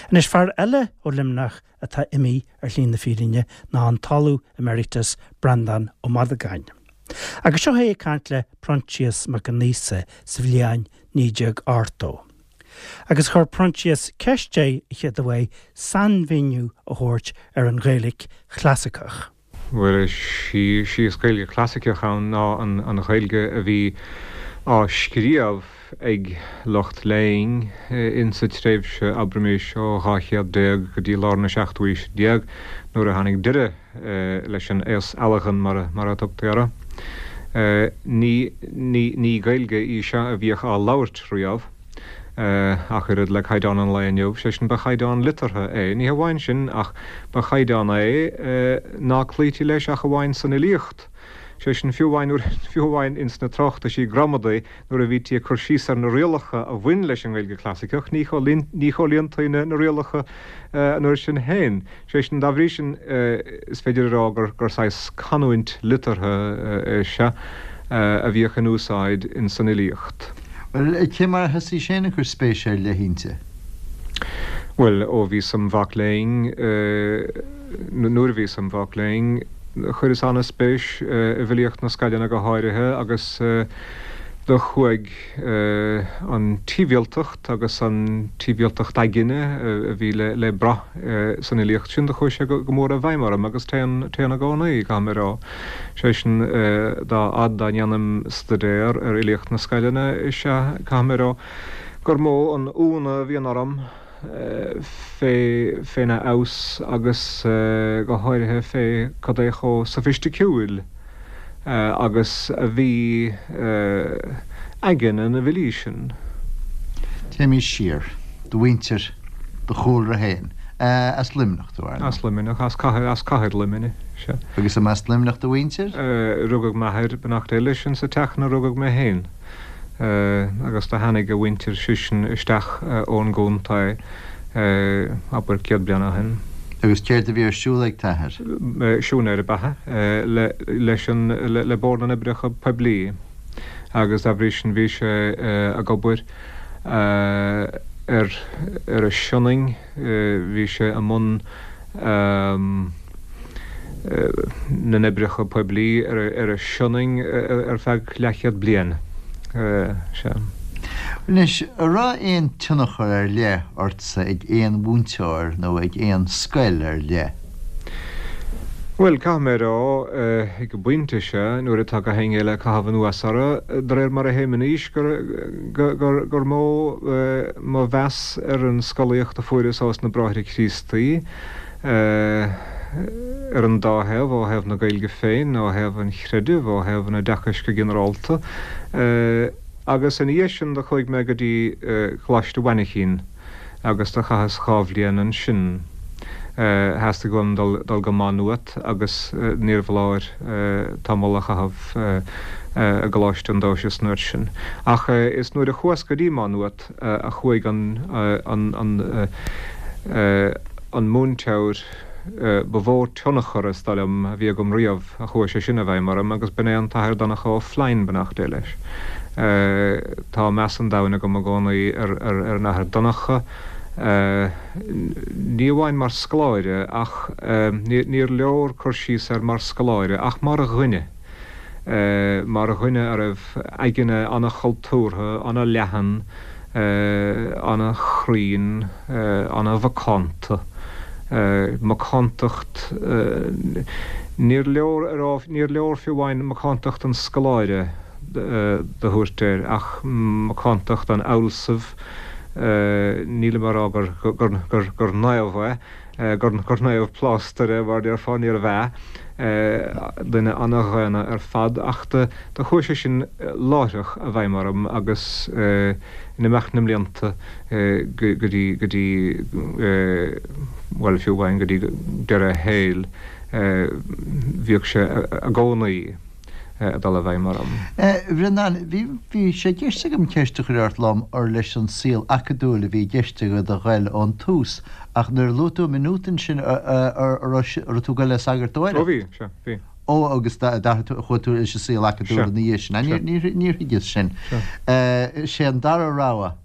Anois, fear eile ó Luimneach atá imithe ar shlí na fírinne ná an tOllamh Emeritus Breandán Ó Madagáin. Agus seo é ag caint le Proinsias Mac Con Aosa sa bhliain 1980. Agus chuir Proinsias ceist air a chéaduair sainmhíniú a thabhairt ar an Ghaeilge chlasaiceach. Bhuel, is í is Gaeilge chlasaiceach ann ná an Ghaeilge a bhí á scríobh ag lucht léinn insa tréimhse, abraimis, ó 12 chéad go dtí lár na seachtú haoise déag, nuair a tháinig deireadh leis an aos ealghan, mar a tugtaí orthu. Ní Gaeilge í seo a bhíodh á labhairt riamh. Ach oiread le caighdeán an lae inniu, sé sin, ba chaighdeán liteartha é. Ní hamháin sin, ach ba chaighdeán é ná cloítí leis ach amháin san fhilíocht. Sé sin, fiú amháin nuair, fiú amháin ins na tráchtaisí gramadaí, nuair a bhítí ag cur síos ar na rialacha a bhain leis an nGaeilge Chlasaiceach, ní chomhlíontaí na rialacha an uair sin féin. Sé sin, dá bhrí sin, is féidir a rá gur saghas canúint liteartha é seo a bhíodh in úsáid in san fhilíocht. Bhuel, cé mar a thosaís féin ag cur spéise ar leith inti? Bhuel, ó bhíos im mhac léinn, nuair a bhíos im mhac léinn, chuireas an-spéis i bhfilíocht na scoileanna go háirithe agus do chuaigh an tsibhialtacht agus an tsibhialtacht aigne a bhí le brath san fhilíocht sin, do chuaigh sé go mór i bhfeidhm orm agus téann, téann i gcónaí, caithfidh mé a rá. Sé sin, dá fhad dá ndéanaim staidéar ar fhilíocht na scoileanna, is ea, caithfidh mé a rá gur mó an ionadh a bhíonn orm fé, féna fheabhas agus go háirithe fé cad é chomh sofaisticiúil agus a bhí aigne na bhfilí sin. Téimís siar. Do mhuintir, do chúlra féin. As Luimneach tú, ar ndóigh. As Luimneach, as cathair, as cathair Luimnigh, sea. Agus an as Luimneach do mhuintir? Rugadh m'athair, beannacht Dé leis, insa teach ina rugadh mé féin. Agus do tháinig a mhuintir seisean isteach ón gcontae, abair, 100 bliain ó shin. Agus céard a bhí ar siúl ag t'athair? Siúinéir ab ea é leis an, le Bord na nOibreacha Poiblí agus dá bhrí sin bhí sé ag obair ar ar an Sionainn, bhí sé i mbun na n-oibreacha poiblí ar an Sionainn ar feadh leathchéad bliain. Sea. Anois, an raibh aon tionchar ar leith ortsa ag aon mhúinteoir nó ag aon scoil ar leith? Bhuel, caithfidh mé a rá, ag an bpointe seo, nuair atá gach éinne eile ag caitheamh anuas orthu, de réir mar a théim in aois, gur, gur, gur mó mo mheas ar an scolaíocht a fuaireas ós na Bráithre Críostaí, ar an dá thaobh, ó thaobh na Gaeilge féin, ó thaobh an chreidimh, ó thaobh an oideachais go ginearálta. Agus ina dhiaidh sin do chuaigh mé go dtí Coláiste Mhainchín. agus do chaitheas dha bhliain ansin. Theastaigh uaim dul go Maigh Nuat agus níorbh fholáir tamall a chaitheamh i gColáiste an Dóisis an uair sin. Ach is nuair a chuas go dtí Maigh Nuat a chuaigh an an múinteoir ba mhó tionchar, is dóigh liom, a bhí agam riamh. a chuaigh sé sin i bhfeidhm orm agus b'in é an tAthair Donncha Ó Floinn, beannacht Dé leis. Tá meas an domhain agam i gcónaí ar an Athair Donncha, ní amháin mar scoláire ach, níor leor cur síos air mar scoláire ach mar dhuine, mar dhuine a raibh aigne an-chultúrtha, an-leathan, an-chruinn, an-mhacánta. Macántacht, níor leor a rá, níor leor fiú amháin macántacht an scoláire do thabhairt air, ach macántacht an fhealsaimh, nílim á rá gur naomh é, gur naomh plástair é, mar déarfá, níorbh ea, duine ana-dhaonna ar fad, ach do chuaigh sé sin láithreach i bhfeidhm orm agus in imeacht na mblianta go dtí, go dtí, bhuel, fiú amháin go dtí deireadh a shaoil, bhíodh sé i gcónaí. ag dul i bhfeidhm orm. A Bhreandáin, bhí, bhí sé i gceist agam ceist a chur ort lom ar leis an saol acadúil a bhí i gceist agat a ghoil ón tús, ach nuair a luaigh tú Maigh Nuad ansin, a raibh tú ag goil le sagartóireacht? Ó bhí, sea, bhí. Ó, agus d'athraigh tú, chuaigh tú leis an saol acadúil ina dhiaidh sin. Níor, níor thuigeas sin. Sé an dara rogha.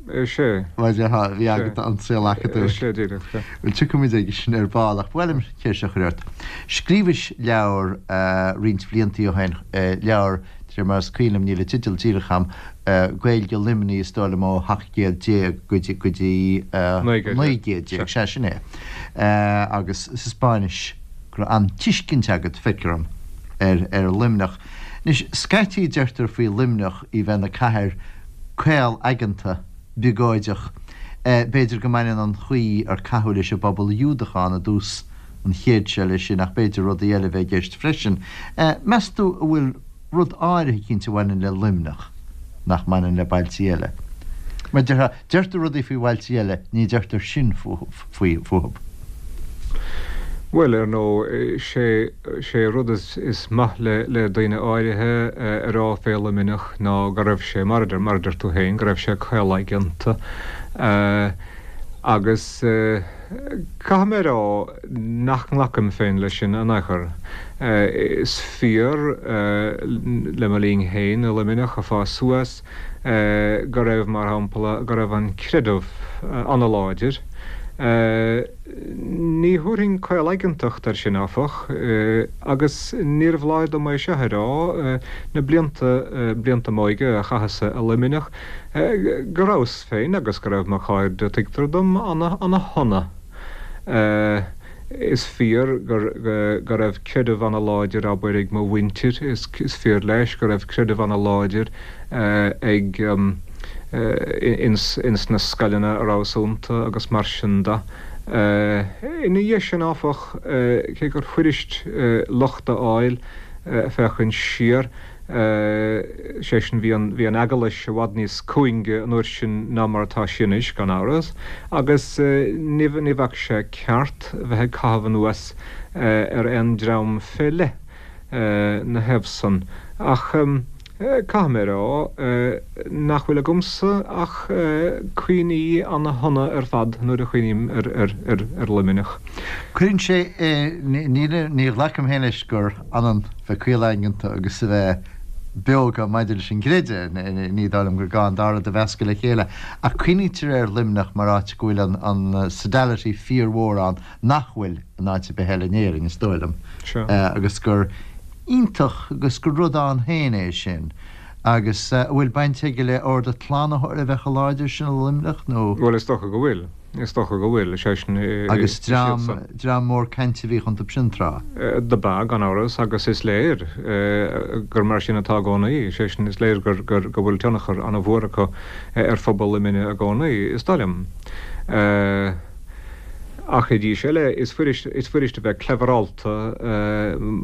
Sea. Mar a déarfá, bhí agat an saol acadúil. Sea, díreach, sea. Bhuel, tiocfaimid aige sin ar ball, ach ba mhaith liom ceist a chur ort. Scríobhais leabhar roinnt bliantaí ó shin, leabhar, de réir mar is cuimhin liom, níl an teideal díreach agam, Gaeilge Luimnigh, is dóigh liom, ó 17 céad go dtí, go dtí 1900, sea, sin é. Agus sa Spáinnis, go raibh an-tuiscint agat, feictear dom, ar, ar Luimneach. Anois, scaití deirtear faoi Luimneach í bheith ina cathair caol-aigeanta, biogóideach. B'fhéidir go mbaineann an chaoi ar caitheadh leis an bpobal Iúdach ann i dtús an chéid seo leis sin, ach b'fhéidir rudaí eile a bheith i gceist freisin. Meas tú an bhfuil rud áirithe eicínt a bhaineann le Luimneach nach mbaineann le bailtí eile? Mar déarfá, deirtear rudaí faoi bhailtí eile, ní deirtear sin fúthu. Bhuel, ar ndóigh, sé, sé rud is, is maith le, le daoine áirithe a rá fé Luimneach ná go raibh sé, mar a deir, mar a deir tú féin, go raibh sé caolaigeanta. Agus caithfidh mé a rá nach nglacaim féin leis sin in aon chor. Is fíor, le mo linn féin i Luimneach ag fás suas, go raibh, mar shampla, go raibh an creideamh an-láidir. Ní thabharfainn caolaigeantacht air sin, áfach, agus níorbh lá dom é seo a rá, na blianta, blianta m'óige a chaitheas-sa i Luimneach, go rabhas féin agus go raibh mo chairde, tuigtear dom, ana-shona. Is fíor go raibh creideamh ana-láidir, abair, ag mo mhuintir, is fíor leis go raibh creideamh ana-láidir ag, ins na scoileanna a rabhas iontu agus mar sin de. Ina dhiaidh sin, áfach, cé gur fuirist locht a fháil féachaint siar, sé sin, bhí an, bhí an Eaglais i bhfad níos cúinge an uair sin ná mar atá sí anois, gan amhras, agus ní, ní bheadh sé ceart bheith ag caitheamh anuas ar aon dream fé leith 'na thaobh san. Ach caithfidh mé a rá nach bhfuil agamsa ach cuimhní ana-shona ar fad nuair a chuimhním ar, ar, ar, ar Luimneach. Cuireann sé, ní, ní ghlacaim féin leis gur ionann bheith caolaigeanta agus a bheith beoga maidir leis an gcreideamh, ní dóigh liom gur gá an dá rud a mheascadh le chéile, ach cuimhnítear ar Luimneach mar áit go bhfuil an sodality fíormhór ann nach bhfuil in áit ar bith eile in Éirinn, is dóigh liom, agus gur iontach agus gur rud ann féin é sin. Agus an bhfuil baint aige le Ord an tSlánaitheora a bheith chomh láidir sin i Luimneach nó? Bhuel, is dócha go bhfuil. Is dócha go bhfuil, is é sin, Agus is dream, iadsan. dream mór cainte a bhíodh iontu sin tráth. Do b'ea, gan amhras, agus is léir gur mar sin atá i gcónaí, is é sin, is léir gur, gur, go bhfuil tionchar an-mhór acu ar phobal Luimnigh i gcónaí, is dóigh liom. Ach arís eile, is fuirist, is fuirist a bheith cleverálta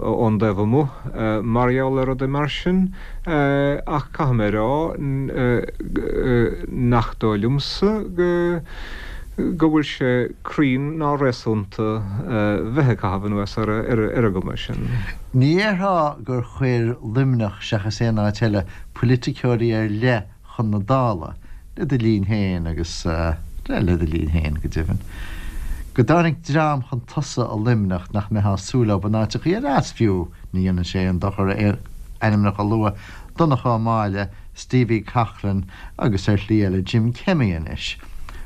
ón dtaobh amuigh mar gheall ar rudaí mar sin, ach caithfidh mé a rá nach dóigh liomsa go go bhfuil sé cruinn ná réasúnta bheith ag caitheamh anuas ar an gcuma sin. Ní dhéarfá gur chuir Luimneach, seachas aon áit eile, poiliticeoirí ar leith chun na Dála, le do linn féin agus, le do linn féin, go deimhin, go dtáinig dream chun tosaigh i Luimneach nach mbeifeá ag súil leo in áiteachaí eile as fiú, ní dhéanann sé aon dochar ainmneacha a lua, Donncha Ó Máille, Stevie Coughlan agus ar shlí eile Jim Kemmy anois,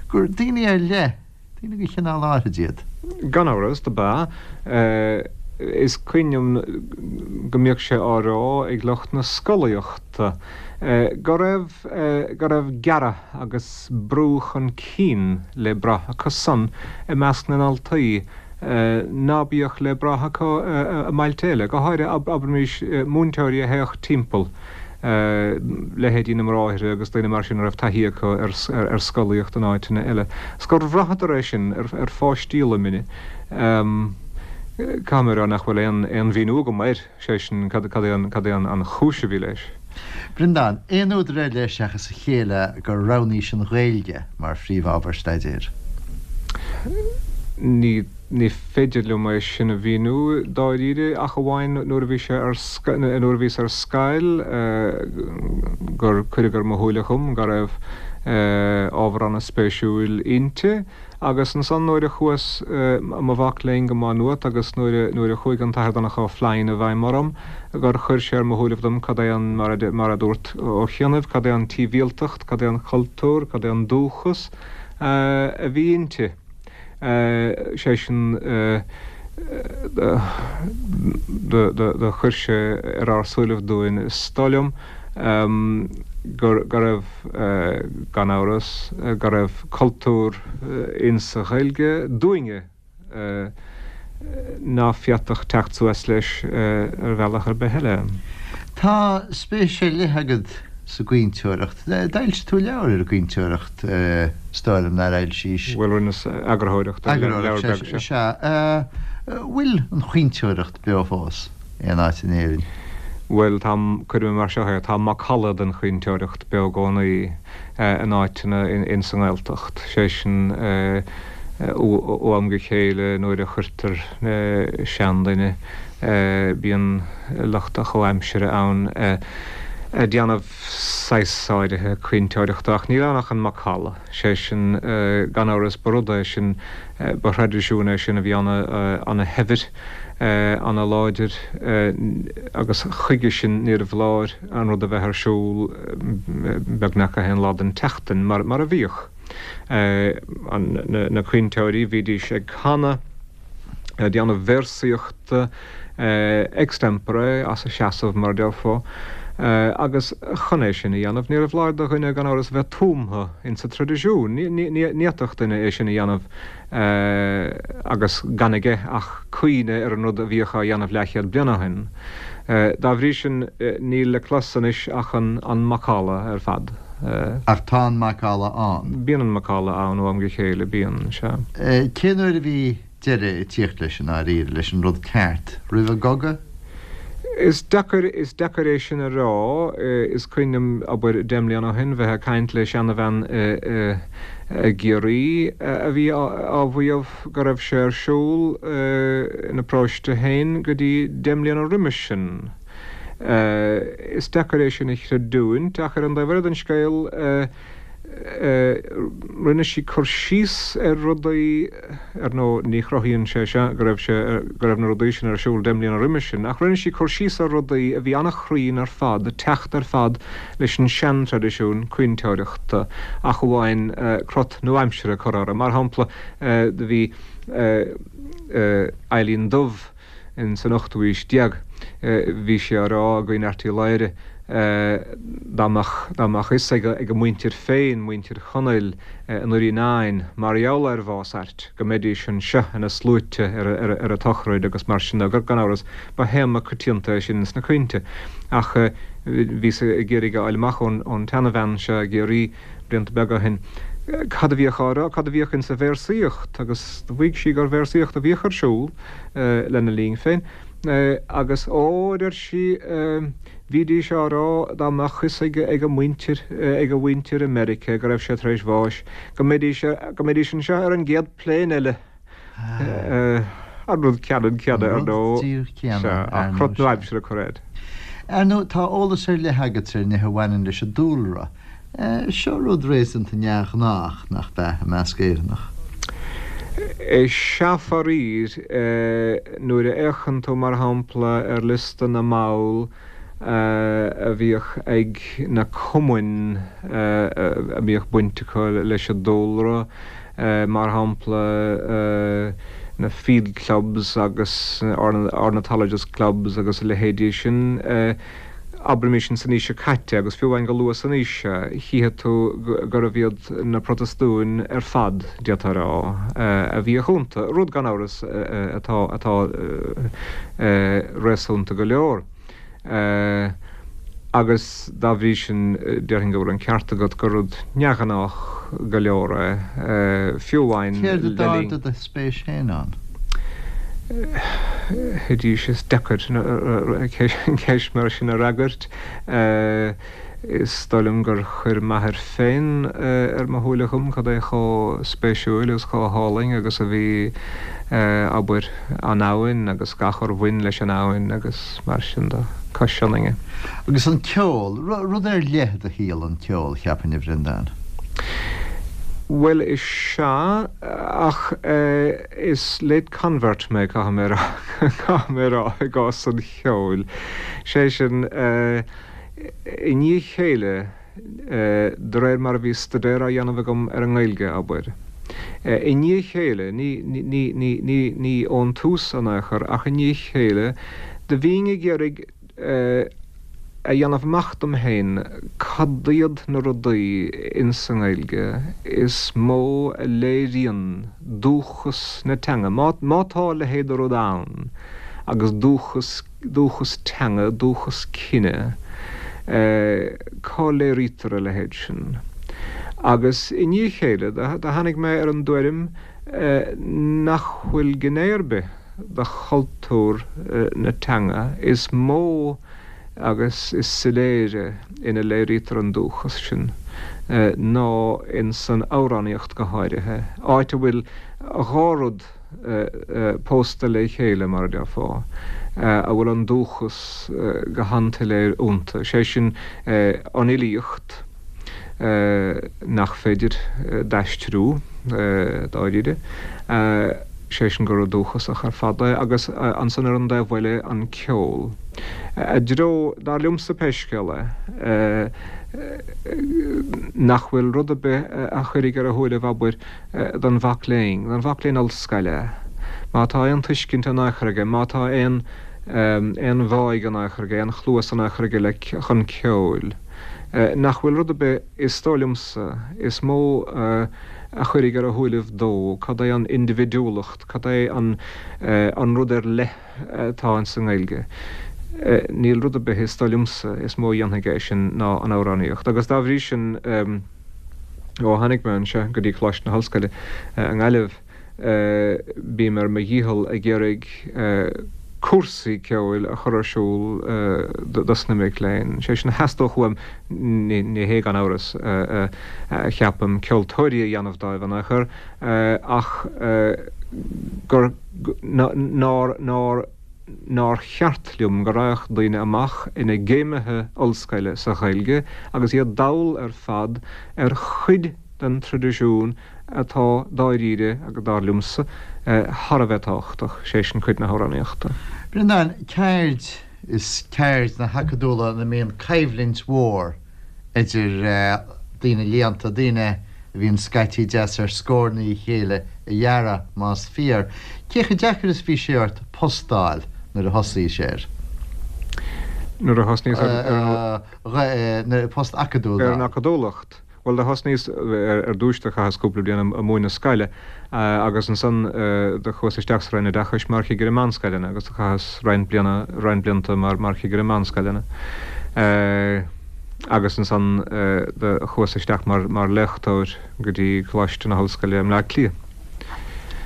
gur daoine ar leith Daoine de chineál áithrid iad. Gan amhras, do b'ea. Is cuimhin liom go mbíodh sé á rá ag lucht na scolaíochta go raibh, go raibh gearradh agus brú chun cinn le brath acu san i measc na ndaltaí ná bíodh le brath acu i mbailte eile, go háirithe, abraimis, múinteoirí a théadh timpeall. leithéidí na mbráithre agus daoine mar sin a raibh taithí acu ar scolaíocht in áiteanna eile. 'S gur bhraitheadar é sin ar pháistí Luimnigh. Caithfidh mé a rá nach bhfuil aon mhíniú agam air, sé sin, cad é an chúis a bhí leis. Breandán, Aon údar ar leith seachas a chéile gur roghnaís an Ghaeilge mar phríomhábhar staidéir? Ní. Ní féidir liom é sin a mhíniú dáiríre ach amháin nuair a bhí sé ar nuair a bhíos ar scoil gur cuireadh ar mo shúile dhom go raibh. Ábhar an-spéisiúil inti. Agus ansan nuair a chuas i mo mhac léinn go Maigh Nuat agus nuair a, nuair a chuaigh an tAthair Donncha Ó Floinn i bhfeidhm orm, gur chuir sé ar mo shúilibh dom cad é an, mar a, mar a dúirt Ó chianaibh, cad é an tsibhialtacht, cad é an cultúr, cad é an dúchas a bhí inti. Sé sin, do, do, do chuir sé ar ár súilibh dúinn, is dóigh liom, gur, go raibh, gan amhras, go raibh cultúr insa Ghaeilge dúinne ná féadfadh teacht suas leis ar bhealach ar bith eile. Tá spéis ar leith agat sa gcaointeoireacht. D'fhoilsigh tú leabhar ar an gcaointeoireacht, is dóigh liom, nár fhoilsís? Bhuel, rinneas eagarthóireacht ar leabhar beag, sea. Sea. Bhfuil an chaointeoireacht beo fós? aon áit in Éirinn? Bhuel, tá, cuirfidh mé mar seo é, tá macalla den chaointeoireacht beo i gcónaí in áiteanna ins an nGaeltacht, sé sin, ó am go chéile nuair a chuirtear seanduine, bíonn lucht a chomhaimsire ann ag déanamh saghas áirithe caointeoireachta, ach níl ann ach an macalla, sé sin, gan amhras ba rud é sin, ba thraidisiún é sin a bhí ana-shaibhir. ana-láidir agus chuige sin níorbh fholáir an rud a bheith ar siúl beagnach gach aon lá den tseachtain mar a bhíodh. Na caointeoirí, bhídís ag canadh, ag déanamh véarsaíochta extempore, as a seasamh mar a déarfá, agus chun é sin a dhéanamh níorbh fholáir do dhuine gan amhras bheith tumtha insa traidisiún. Ní fhéadfadh duine é sin a dhéanamh agus gan aige ach cuimhne ar an rud a bhíodh á dhéanamh leathchéad bliain ó shin. Dá bhrí sin, níl le clos anois ach an macalla ar fad. Ach tá an macalla ann. Bíonn an macalla ann ó am go chéile, bíonn, sea. Cén uair a bhí deireadh ag tíocht leis i ndáiríre, leis an rud ceart? Roimh an gcogadh? Is deacair, is deacair é sin a rá. Is cuimhin liom, abair, deich mbliana ó shin, bheith ag caint le seanabhean i gCiarraí a bhí á mhaíomh go raibh sé ar siúl ina paróiste féin go dtí deich mbliana roimis sin. Is deacair é sin a chreidiúint ach ar an dtaobh eile den scéal, rinne sí cur síos ar rudaí, ar ndóigh ní chruthaíonn sé seo go raibh sé, go raibh na rudaí sin ar siúl deich mbliana roimis sin, ach rinne sí cur síos ar rudaí a bhí an-chruinn ar fad, ag teacht ar fad leis an seantraidisiún caointeoireachta, ach amháin crot nua-aimseartha a chur orthu. Mar shampla, do bhí Eilín Dubh, In san ochtú aois déag bhí sé á rá i gCuan Airt Uí Laoghaire dá mbeadh dá mbeadh fhios ag ag a muintir féin, muintir Chonaill i nDoirí an Eidhinn, mar gheall ar bhás Airt, go mbeidís anseo ina sluaite ar ar ar a tsochraid agus mar sin de. Gan amhras, ba théama coitianta é sin ins na caointe. Ach bhíos ag iarraidh a fháil amach ón ón tseanabhean seo i gCiarraí blianta beaga ó shin, cad a bhíodh á rá, cad a bhíodh insa véarsaíocht, agus do mhaígh sí gur véarsaíocht a bhíodh ar siúl lena linn féin, agus ó, a deir sí, bhídís á rá dá mbeadh fhios ag ag a muintir, ag a mhuintir i Meiriceá go raibh sé tar éis bháis, go mbeidís, go mbeidís anseo ar an gcéad plane eile. An rud ceannann céanna, ar ndóigh. An rud díreach céanna, ar ndóigh. Ach crot nua-aimseartha a chur air. Ar ndóigh, tá eolas ar leith agat ar nithe a bhaineann leis an dúlra. Seo rud réasúnta neamhghnách, nach ea, i measc Éireannach? Is ea faraor. Nuair a fhéachann tú, mar shampla, ar liosta na mball a bhíodh ag na cumainn a mbíodh baint acu leis an dúlra, mar shampla, na field clubs agus ornithologist clubs agus a leithéidí sin, abraimis in san aois seo caite, agus fiú amháin go luath san aois seo, chífidh tú gurbh iad na Protastúin ar fad, d'fhéadfá a rá, a bhíodh iontu, rud, gan amhras, atá, atá réasúnta go leor. Agus dá bhrí sin, déarfainn go bhfuil an ceart agat gur rud neamhghnách go leor é, fiú amháin le linn. Céard a d'ardaigh do spéis féin ann? Arís, is deacair ceist mar sin a fhreagairt. Is dóigh liom gur chuir m'athair féin ar mo shúile dhom cad é chomh spéisiúil agus chomh hálainn agus a bhí, abair, an abhainn agus gach ar bhain leis an abhainn agus mar sin de, cois Sionainne. Agus an ceol, rud ar leith i do shaol an ceol, cheapfainn, a Bhreandáin. Bhuel, is ea, ach is late convert mé, caithfidh mé a rá, caithfidh mé a rá, i gcás an cheoil. Sé sin, i ndiaidh a chéile, de réir mar a bhí staidéar á dhéanamh agam ar an nGaeilge, abair. I ndiaidh a chéile, ní, ní, ní, ní, ní ón tús in aon chor, ach i ndiaidh a chéile, do bhínn ag iarraidh, a dhéanamh amach dom féin cad iad na rudaí ins an nGaeilge is mó a léiríonn dúchas na teanga, má tá a leithéid de rud ann agus dúchas, dúchas teanga, dúchas cine, cá léirítear a leithéid sin? Agus i ndiaidh a chéile, do tháinig mé ar an dtuairim nach bhfuil gné ar bith, de chultúr na teanga is mó agus is soiléire ina léirítear an dúchas sin ná ins an amhránaíocht go háirithe, áit a bhfuil dhá rud pósta le chéile, mar a déarfá, a bhfuil an dúchas go han-tsoiléir iontu, sé sin, an fhilíocht, nach féidir d'aistriú, dáiríre, sé sin gur rud dúchasach ar fad é, agus ansan ar an dtaobh eile an ceol. I dtreo, dar liomsa pé scéal é, nach bhfuil rud ar bith a chuirfidh ar a shúilibh, abair, don mhac léinn, don mhac léinn ollscoile, má tá aon tuiscint in aon chor aige, má tá aon aon bháidh in aon chor aige, aon chluas in aon chor aige le chun ceoil. Nach bhfuil rud ar bith, is dóigh liomsa, is mó a chuirfidh ar a shúilibh dó cad é an indibhidiúlacht, cad é an an rud ar leith atá ins an nGaeilge. Níl rud ar bith, is dóigh liomsa, is mó a dhéanfaidh é sin ná an amhránaíocht. Agus dá bhrí sin, ó tháinig mé anseo go dtí Coláiste na hOllscoile i nGaillimh, Bím ar mo dhícheall ag iarraidh cúrsaí ceoil a chur ar siúl dos na mic léinn. Sé sin a theastódh uaim, ní hé gan amhras, a cheapaim, ceoltóirí a dhéanamh dóibh in aon chor, ach gur, nár, nár, nár cheart liom go raghadh daoine amach ina gcéimithe ollscoile sa Ghaeilge agus iad dall ar fad ar chuid den traidisiún atá dáiríre agus dar liomsa, thar a bheith tábhachtach, sé sin cuid na hamhránaíochta. Breandán, ceird is ceird na hacadúla ina mbíonn coimhlint mhór idir daoine léannta, daoine a bhíonn scaití deas ar scór na a chéile a dhearadh, más fíor. Cé chomh deacair is bhí sé ort post d'fháil nuair a thosaís air? Nuair a thosnaíos ar an. Post acadúil. Ar an acadúlacht. Bhuel, do thosnaíos ar dtúis, do chaitheas cúpla bliain ag múineadh scoile agus ansan do chuas isteach sa Roinn Oideachais mar chigire meánscoileanna agus do chaitheas roinnt bliana, roinnt blianta mar, mar chigire meánscoileanna. Agus ansan do chuas isteach mar, mar léachtóir go dtí Coláiste na hOllscoile i mBleá Cliath.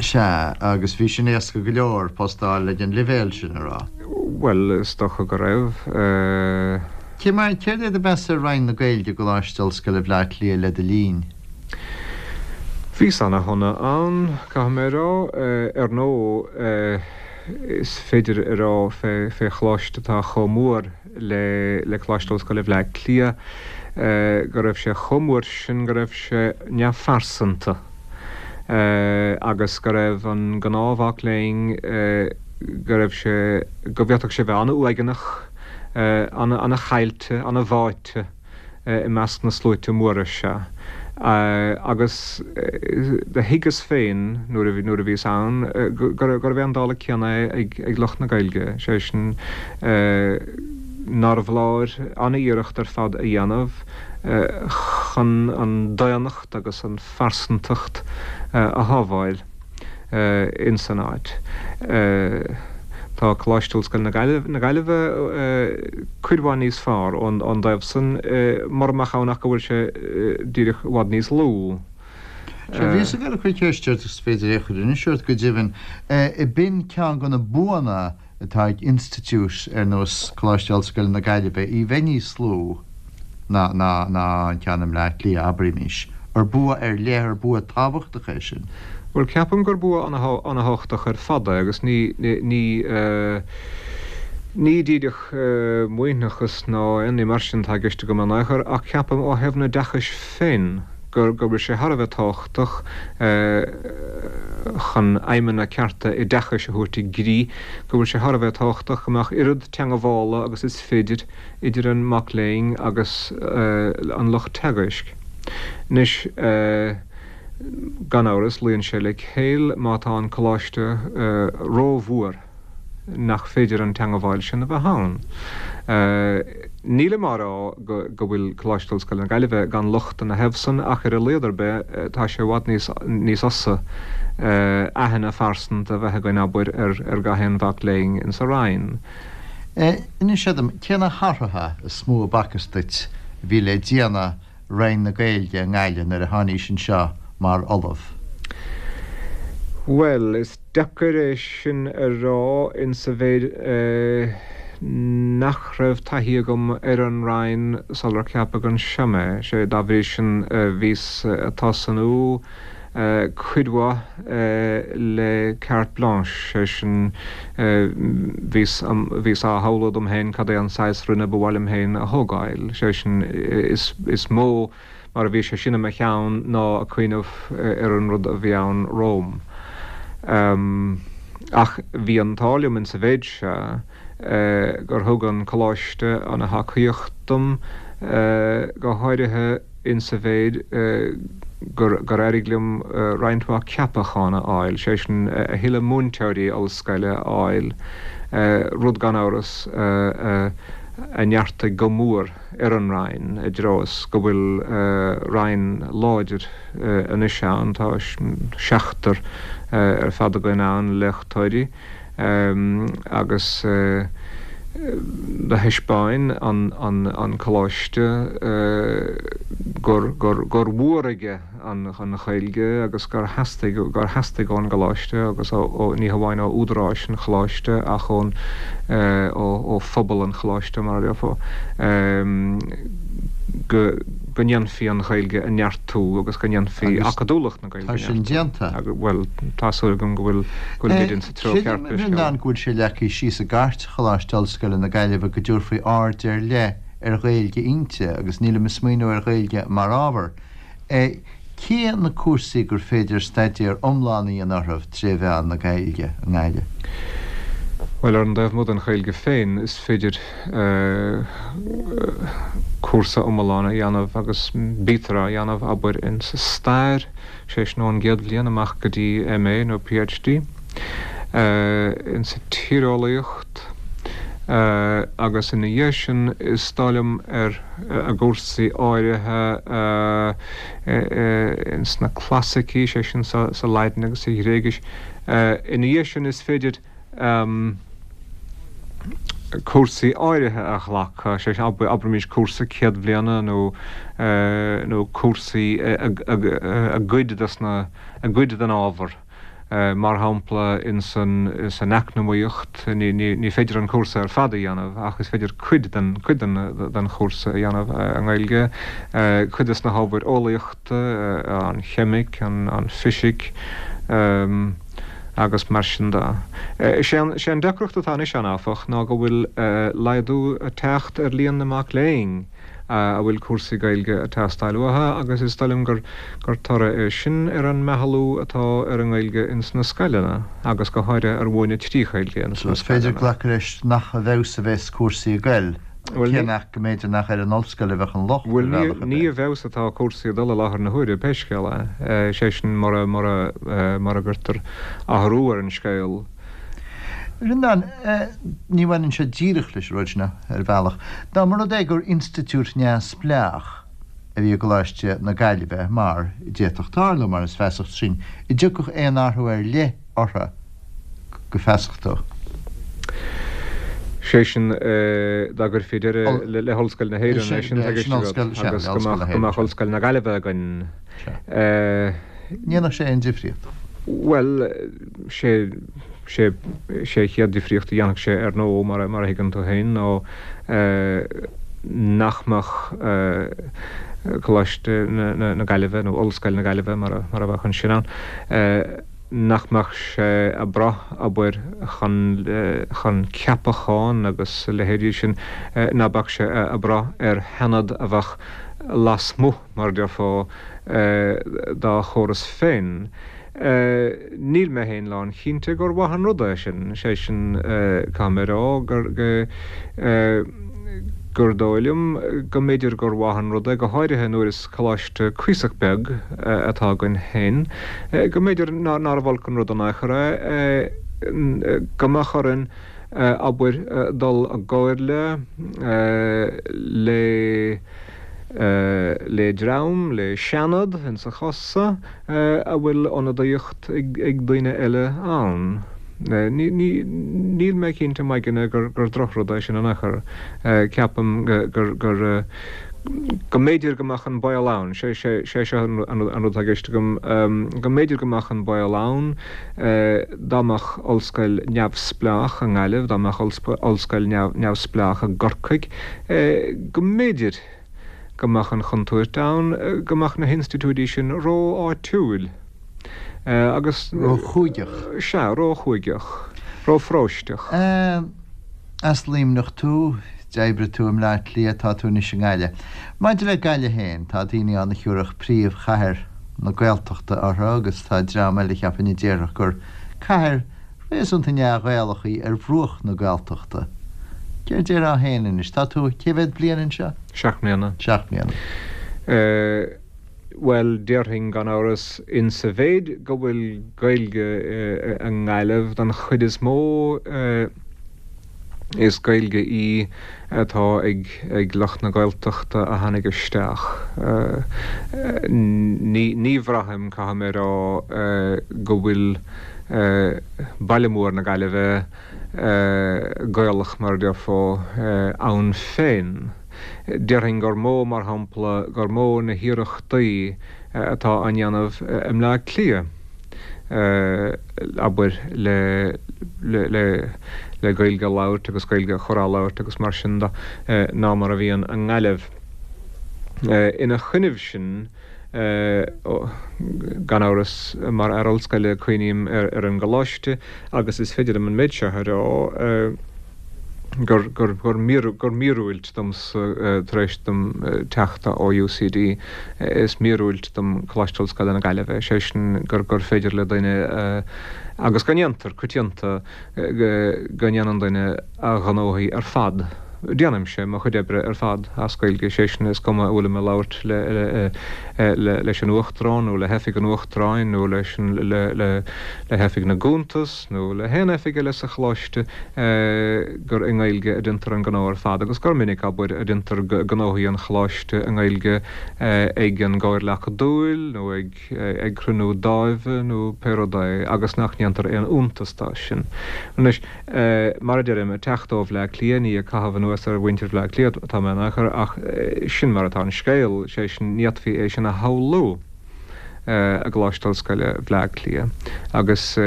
Sea, agus bhí sin éasca go leor, post a fháil ag an leibhéal sin, a raibh? Bhuel, is dócha go raibh. Cé mar, céard é do mheas ar Roinn na Gaeilge i gColáiste Ollscoile Bhleá Cliath le do linn? Bhíos ana-shona ann, caithfidh mé a rá. Ar ndóigh, is féidir a rá fé, fé choláiste atá chomh mór le, le Coláiste Ollscoile Bhleá Cliath, go raibh sé chomh mór sin go raibh sé neamhphearsanta agus go raibh an gnáthmhac léinn, go raibh sé, go bhféadfadh sé bheith an-uaigneach, ana-chaillte, ana-bháite i measc na sluaite móra seo. Agus do thuigeas féin nuair a bhíos ann gurbh é an dála céanna é ag lucht na Gaeilge, sé sin nárbh fholáir an-iarracht ar fad a dhéanamh chun an daonnacht agus an phearsantacht a shábháil. ins an áit. Tá Coláiste Ollscoile na Gaillimhe cuid mhaith níos fearr ón dtaobh san, mura mbeadh ann ach go bhfuil sé díreach i bhfad níos lú. Sea, bhíos ag dul a cur ceist ort, is féidir é a chur anois ort go deimhin. B'in ceann de na buanna atá ag institiúid ar nós Coláiste Ollscoile na Gaillimhe, í bheith níos lú ná ná an ceann i mBleá Cliath, abraímis. Ar bua ar leith, ar bua tábhachtach é sin? Bhuel, ceapaim gur bua ana-thábhachtach ar fad é agus ní, ní, ní díreach maoithneachas ná aon ní mar sin atá i gceist agam in aon chor ach ceapaim ó thaobh an oideachais féin. Go bhfuil sé thar a bheith tábhachtach chun aidhmeanna cearta oideachais a thabhairt i gcrích, go bhfuil sé thar a bheith tábhachtach go mbeadh oiread teangabhála agus is féidir idir an mac léinn agus an lucht teagaisc. Anois, gan amhras, luíonn sé le céill má tá an coláiste rómhór nach féidir an teangabháil sin a bheith ann. Nílim á rá go bhfuil Coláiste Ollscoile na Gaillimhe gan locht ina thaobh san ach ar a laghad ar bith tá sé i bhfad níos níos fhusa aithne phearsanta a bheith againn, abair, ar gach aon mhac léinn insa Roinn. Inis dom, cé na hathruithe is mó a b'fhacthas duit a bhí le déanamh Roinn na Gaeilge i nGaillimh nuair a tháinís anseo mar ollamh? Bhuel, is deacair é sin a rá insa mhéid nach raibh taithí agam ar an Roinn sular ceapadh anseo mé. Sé, dá bhrí sin, bhíos ag tosnú cuid mhaith le carte blanche, sé sin, bhíos, bhíos á shamhlú dom féin cad é an saghas Roinne ba mhaith liom féin a thógáil, sé sin, is, is mó mar a bhí sé sin i mo cheann ná ag cuimhneamh ar an rud a bhí ann romham. Ach bhí an t-ádh liom insa mhéid seo gur thug an Coláiste ana thacaíocht dom, go háirithe, insa mhéid gur éirigh liom roinnt mhaith ceapachán a fháil, sé sin, a thuilleadh múinteoirí ollscoile a fháil, rud gan amhras a neartaigh go mór ar an Roinn, i dtreo is go bhfuil Roinn láidir anois ann, tá seachtar ar fad againn ann, léachtóirí. agus do thaispeáin an Coláiste gur mhór aige an Ghaeilge agus gur theastaigh, gur theastaigh ón gColáiste agus ó, ní hamháin ó údaráis an Choláiste ach ón, ó phobal an Choláiste mar a déarfá, go ndéanfaí an Ghaeilge a neartú agus go ndéanfaí acadúlacht na Gaeilge. Tá sin déanta. Bhuel, tá súil agam go bhfuil, go bhfuilimid insa treo ceart pé scéal é. Creidim, a Bhreandáin, go bhfuil sé leagtha síos i gCairt Choláiste Ollscoile na Gaillimhe go dtabharfaí aird ar leith ar Ghaeilge inti agus nílim ag smaoineamh ar Ghaeilge mar ábhar. Cé na cúrsaí gur féidir staidéar iomlán a dhéanamh orthu tré mheán na Gaeilge i nGaillimh? Bhuel, ar an dtaobh amuigh den Ghaeilge féin, is féidir cúrsa iomlán a dhéanamh agus bítear á dhéanamh, abair, insa stair, sé sin ón gcéad bhliain amach go dtí MA nó PhD, insa tíreolaíocht agus ina dhiaidh sin is dóigh liom ar i gcúrsaí áirithe ins na clasaicí, sé sin sa Laidin agus sa Ghréigis. Ina dhiaidh sin is féidir. cúrsaí áirithe a ghlacadh, sé sin, abraimis cúrsa céad bhliana nó nó cúrsaí i gcuid des na, i gcuid den ábhar. Mar shampla ins an, ins an eacnamaíocht, ní, ní, ní féidir an cúrsa ar fad a dhéanamh ach is féidir cuid den, cuid den, den chúrsa a dhéanamh i nGaeilge, cuid des na hábhair eolaíochta, an cheimic, an, an fisic. agus mar sin de. Is é an deacracht atá anois ann, áfach, ná go bhfuil laghdú ag teacht ar líon na mac léinn a bhfuil cúrsaí Gaeilge ag teastáil uathu agus is dóigh liom gur toradh é sin ar an meathlú atá ar an nGaeilge ins na scoileanna agus go háirithe ar mhúineadh trí Ghaeilge ins na scoileanna. Is féidir glacadh leis nach i bhfeabhas a bheas cúrsaí ag goil. Cé nach go mb'fhéidir nach ar an ollscoil a bheadh an locht, ar bhealach ar bith. Bhuel, ní i bhfeabhas atá cúrsaí ag dul i láthair na huaire, pé scéal é, sé sin mura, mura, mura gcuirtear athrú ar an scéal. A Bhreandáin, ní bhaineann sé díreach leis an rud sin ar bhealach. Dá mba rud é gur institiúid neamhspleách a bhí i gColáiste na Gaillimhe, mar a d'fhéadfadh tarlú, mar is feasach sin, an dtiocfadh aon athrú ar leith orthu? go feasach dó. Sé sin, dá gcuirfí deireadh le hOllscoil na hÉireann, é sin atá i gceist agat, agus go mbeadh Ollscoil na Gaillimhe againn. Ní dhéanfadh sé aon difríocht. Bhuel, sé sé an chéad difríocht a dhéanfadh sé, ar ndóigh, mar a thuigeann tú féin, ná nach mbeadh Coláiste na Gaillimhe, nó Ollscoil na Gaillimhe mar a bheadh ansin ann, nach mbeadh sé ag brath, abair, chun, chun ceapachán agus a leithéidí sin, ná beadh sé ag brath ar sheanad a bheadh. lasmuigh, mar a déarfá, dá chóras féin. Níl mé féin lánchinnte gur mhaith an rud é sin, sé sin, caithfidh mé a rá gur, gur dóigh liom go mb'fhéidir gur mhaith an rud é, go háirithe nuair is coláiste cuíosach beag atá againn féin, go mb'fhéidir nárbh olc an rud in aon chor é go mbeadh orainn, abair, dul i gcomhairle le le dream, le seanad, insa chás so, a bhfuil ionadaíocht ag daoine eile ann. Níl mé cinnte i m'aigne gur drochrud é sin in aon chor. Ceapaim gur, gur, go mb'fhéidir go mbeadh an baol ann, sé seo an rud atá i gceist agam, go mb'fhéidir go mbeadh an baol ann dá mbeadh ollscoil neamhspleách i nGaillimh, dá mbeadh ollscoil neamhspleách i gCorcaigh, go mb'fhéidir go mbeadh an chontúirt ann go mbeadh na hinstitiúidí sin ró-áitiúil agus. Ró-chúigeach. Sea, ró-chúigeach. Ró-pharóisteach. As Luimneach tú, d'oibrigh tú i mBleá Cliath, tá tú anois i nGaillimh. Maidir le Gaillimh féin, tá daoine ann a thiúrfadh príomhchathair na Gaeltachta uirthi agus tá dream eile cheapfainn a déarfadh gur cathair réasúnta neamh-Ghaelach í ar bhruach na Gaeltachta. Céard déarfá féin anois? Tá tú cé mhéad bliain anseo? 7 mbliana. 7 mbliana. Bhuel, déarfainn gan amhras, insa mhéid go bhfuil Gaeilge i nGaillimh don chuid is mó, is Gaeilge í atá ag lucht na Gaeltachta a tháinig isteach. Ní bhraithim, caithfidh mé a rá, go bhfuil baile mór na Gaillimhe Gaelach, mar a déarfá, ann féin. Déarfainn gur mó, mar shampla, gur mó na hiarrachtaí atá á ndéanamh i mBleá Cliath, abair, le le Gaeilge a labhairt agus Gaeilge a chur á labhairt agus mar sin de, ná mar a bhíonn i nGaillimh. Ina choinnibh sin, gan amhras, mar fhear ollscoile, cuimhním ar an gcoláiste agus is féidir liom an méid seo a rá, gur, gur, gur, gur míorúilt domsa, tar éis dom teacht ó UCD, is míorúilt dom Coláiste Ollscoile na Gaillimhe, sé sin gur, gur féidir le duine, agus go ndéantar, coitianta, go ndéanann duine a ghnóthaí ar fad, déanaimse mo chuid oibre ar fad as Gaeilge, sé sin, is cuma an bhfuilim ag labhairt le, leis an Uachtarán nó le hOifig an Uachtaráin nó leis an, le, le, le hOifig na gCuntas nó le haon oifig eile sa Choláiste, gur i nGaeilge a déantar an gnó ar fad agus gur minic, abair, a déantar gnóthaí an Choláiste i nGaeilge ag an gComhairle Acadúil nó ag ag cruinniú dáimhe nó pé rud é agus nach ndéantar aon iontas de sin. Anois, mar a deirim, ag teacht ó Bhleá Cliath, ní ag caitheamh anuas ar mhuintir Bhleá Cliath atá mé in aon chor ach sin mar atá an scéal, sé sin, ní fhéadfaí é sin a shamhlú i gColáiste Ollscoile Bhleá Cliath. Agus,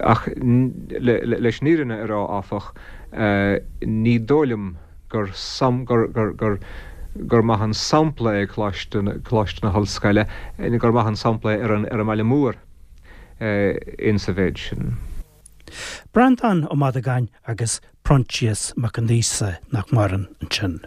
ach leis an fhírinne a rá, áfach, ní dóigh liom, gur gur gur gur maith an sampla é Coláiste Coláiste na hOllscoile, gur maith an sampla é ar an ar an mbaile mór insa mhéid sin. Breandán Ó Madagáin agus Proinsias Mac Aonghusa nach maireann ansin.